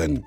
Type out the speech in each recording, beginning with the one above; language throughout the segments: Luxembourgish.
Minutten.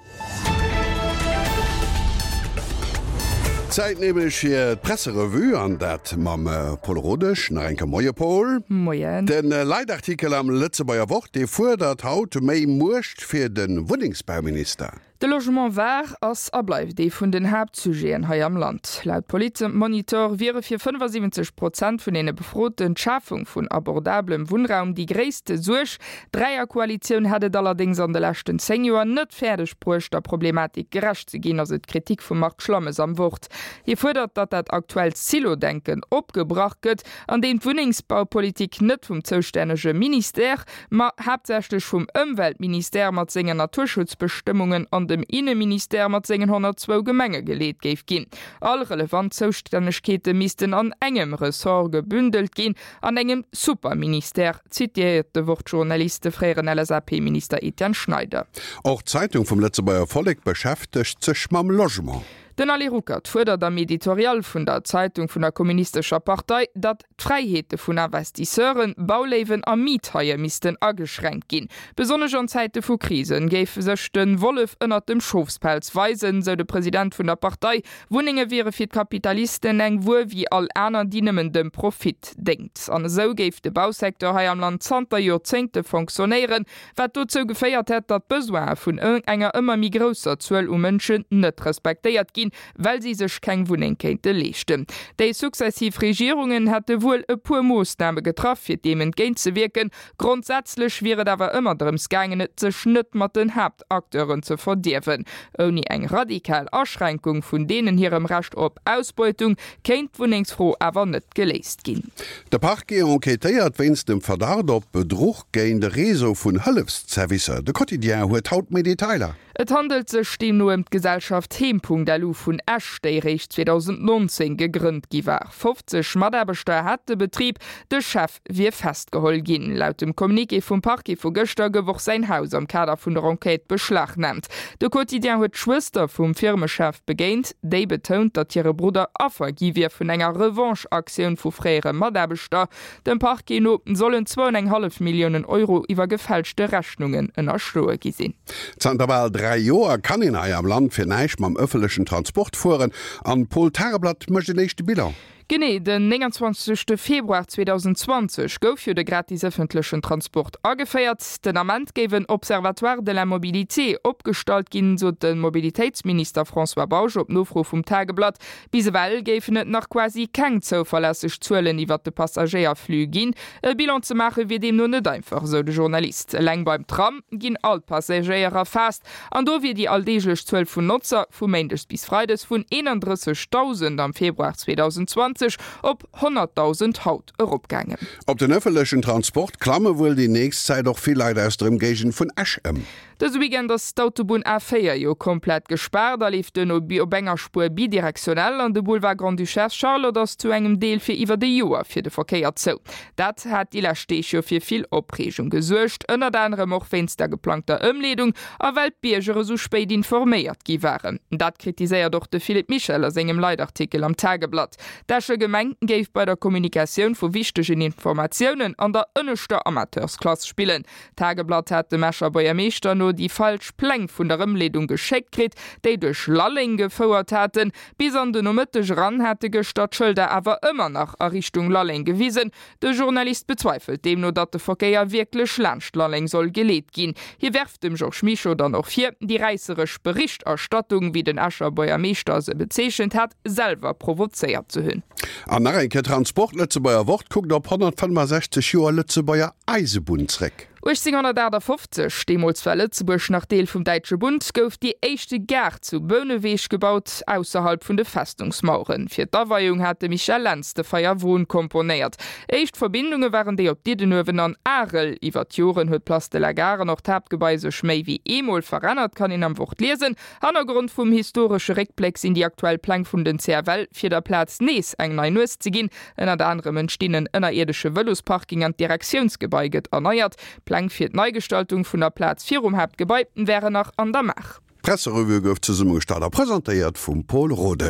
Zäit nämlech fir d'Presserevue an dat mam Paul Rodesch. Nach eng Kéier Moie Paul. Moien. De Leitartikel am Lëtzebuerger Wort, dee fuerdert haut méi Muecht fir de Wunnengsbauminister. De Logement war, ass a bleift ee vun den Haaptsujeten hei am Land. Laut Politmonitor wiere fir 75 Prozent vun deene Befroten d'Schafung vun abordablem Wunnraum déi gréisste Suerg. D'Dräierkoalitioun hätt et allerdéngs an de leschten 10 Joer net fäerdeg bruecht, der Problematik gerecht ze ginn, ass et d'Kritik vum Marc Schlammes am Wort. Hie fuerdert, datt dat aktuellt Silo-Denken opgebrach gëtt, an deem d'Wunnengsbaupolitik net vum zoustännege Ministère, ma haaptsächlech vum Ëmweltministère mat sengen Naturschutzbestëmmungen an dem Inneministère mat sengen 102 Gemenge geleet géif ginn. All relevant Zoustännegkeete missten an engem Ressort gebündelt ginn, an engem Superministère, zitiéiert de Wort-Journalist de fréieren LSAP-Minister Etienne Schneider. Och d'Zeitung vum Lëtzebuerger Vollek beschäftegt sech mam Logement. Den Ali Ruckert fuerdert am Editorial vun der Zeitung vun der Kommunistescher Partei, datt d'Fräiheete vun Investisseuren, Bauléiwen a Miethaie missten ageschränkt ginn. Besonnesch an Zäite vu Krisen géif sech de Wollef ënnert dem Schofspelz weisen, sou de President vun der Partei. Wunnenge wiere fir d'Kapitalisten eng Wuer wéi all aner, déi nëmmen dem Profit déngt. An esou géif de Bausecteur hei am Land zanter Joerzéngte fonctionnéieren, wat dozou geféiert hätt, datt d'Besoine vun enger ëmmer méi grousser Zuel u Mënschen net respektéiert ginn, well si sech keng Wunneng kéinte leeschten. Déi successiv Regierungen hätte wuel e puer Moossname getraff, fir deem entgéintzewierken. Grondsätzlech wier et awer ëmmer drëms gaangen, et sech net mat den Haaptacteuren ze verdierwen. Ouni eng radikal Aschränkung vun deenen hirem Recht op Ausbeutung kéint d'Wunnengsfro awer net geléist ginn. De Parquet enquêtéiert wéinst dem Verdacht op Bedruch géint e Réseau vun Hëllefszervicer. De Quotidien huet haut méi Detailer. Et handelt sech deemno ëm d'Gesellschaft Heem.lu vun Esch, déi eréischt 2019 gegrënnt gi war. 50 Mataarbechter hat de Betrib, de Chef wier festgeholl ginn. Laut dem Communiqué vum Parquet vu gëschter gouf och säin Haus am Kader vun der Enquête beschlagnaamt. De Quotidien huet d'Schwëster vum Firmechef begéint, déi betount, datt hire Brudder Affer gi wier vun enger Revanche-Aktioun vu fréiere Mataarbechter. Dem Parquet no sollen zwou an eng hallef Milliounen Euro iwwer gefälschte Rechnungen ënnerschloe gi sinn. Zanter bal 3 Joer kann een hei am Land fir näischt mam ëffentlechen Transport fueren an d'Pol Tageblatt mécht en éischte Bilan. Genee den 29 Februar 2020 gouf jo de gratis ëffentlechen Transport ageféiert. Den Ament géif en Observatoire de la mobilité opgestallt ginn, sot de Mobilitéitsminister François Bausch op Nofro vum Tageblatt. Bis ewell géifen et nach quasi keng zouverlässeg Zuelen iwwert de Passagéierflux ginn. E Bilan ze maache wier deemno net einfach, esou de Journalist. Eleng beim Tram ginn all d'Passagéier erfaasst an do wier déi alldeeglech Zuel vun Notzer vu méindes bis freides vun 31.000 am Februar 2020 op 100.000 haut eropgaangen. Op den ëffentlechen Transport klamme wuel déi nächst Zäit och vill Leit aus der Ëmgéigend vun Esch ëm. Dëse Weekend ass d'Autobunn A4 jo komplett gespaart a leeft duerno op enger Spuer bidirektionell an de Boulevard Grande-Duchesse Charlotte ass zu engem Deel fir iwwert e Joer fir de Verkéier zou. Dat hat déi lescht Deeg jo fir vill Opreegung gesuergt, ënnert anerem och wéinst der geplangter Ëmleedung a well d'Bierger esou spéit informéiert gi waren. Dat kritiséiert och de Philippe Michel a sengem Leitartikel am Tageblatt. D'Escher Gemeng géif bei der Kommunikatioun vu wichtegen Informatiounen an der ënneschter Amateursklass spillen. D'Tageblatt hat dem Escher Buergermeeschter no déi falsch Pläng vun der Ëmleedung geschéckt kritt, déi duerch Lalleng gefouert haten. Bis an de Nomëtteg eran hate gëschter d'Schëlder awer ëmmer nach a Richtung Lalleng gewisen. De Journalist bezweifelt deemno, datt de Verkéier wierklech laanscht Lalleng soll geleet ginn. Hie werft dem Georges Mischo dann och vir, déi räisseresch Berichterstattung, wéi den Escher Buergermeeschter se bezeechent hat, selwer provozéiert ze hunn. An nach eng Kéier Transport, Lëtzebuerger Wort kuckt op 165 Joer Lëtzebuerger Eisebunn zréck. 1858, deemools war Lëtzebuerg nach Deel vum Däitsche Bund, gouf déi éischte Gare zu Bouneweg gebaut, ausserhalb vun de Festungsmaueren. Fir d'Aweiung hat de Michel Lentz de Feierwon komponéiert. Éischt Verbindunge waren déi op Diddenuewen an Arel. Iwwer d'Joren huet d'Place de la Gare an och d'Haaptgebai sech méi wéi eemol verännert, kann een am Wort liesen. Hannergrond vum historesche Réckbléck sinn déi aktuell Pläng vun den CFL, fir der Plaz nees eng nei Nues ze ginn. Ënnert anerem entstinn en ënnerierdesche Vëlosparking an d'Direktiounsgebai gëtt erneiert. D'Pläng fir d'Neigestaltung vun der Plaz virum Haaptgebai wären nach an der Maach. D'Presserevue gouf zesummegestallt a presentéiert vum Paul Rodesch.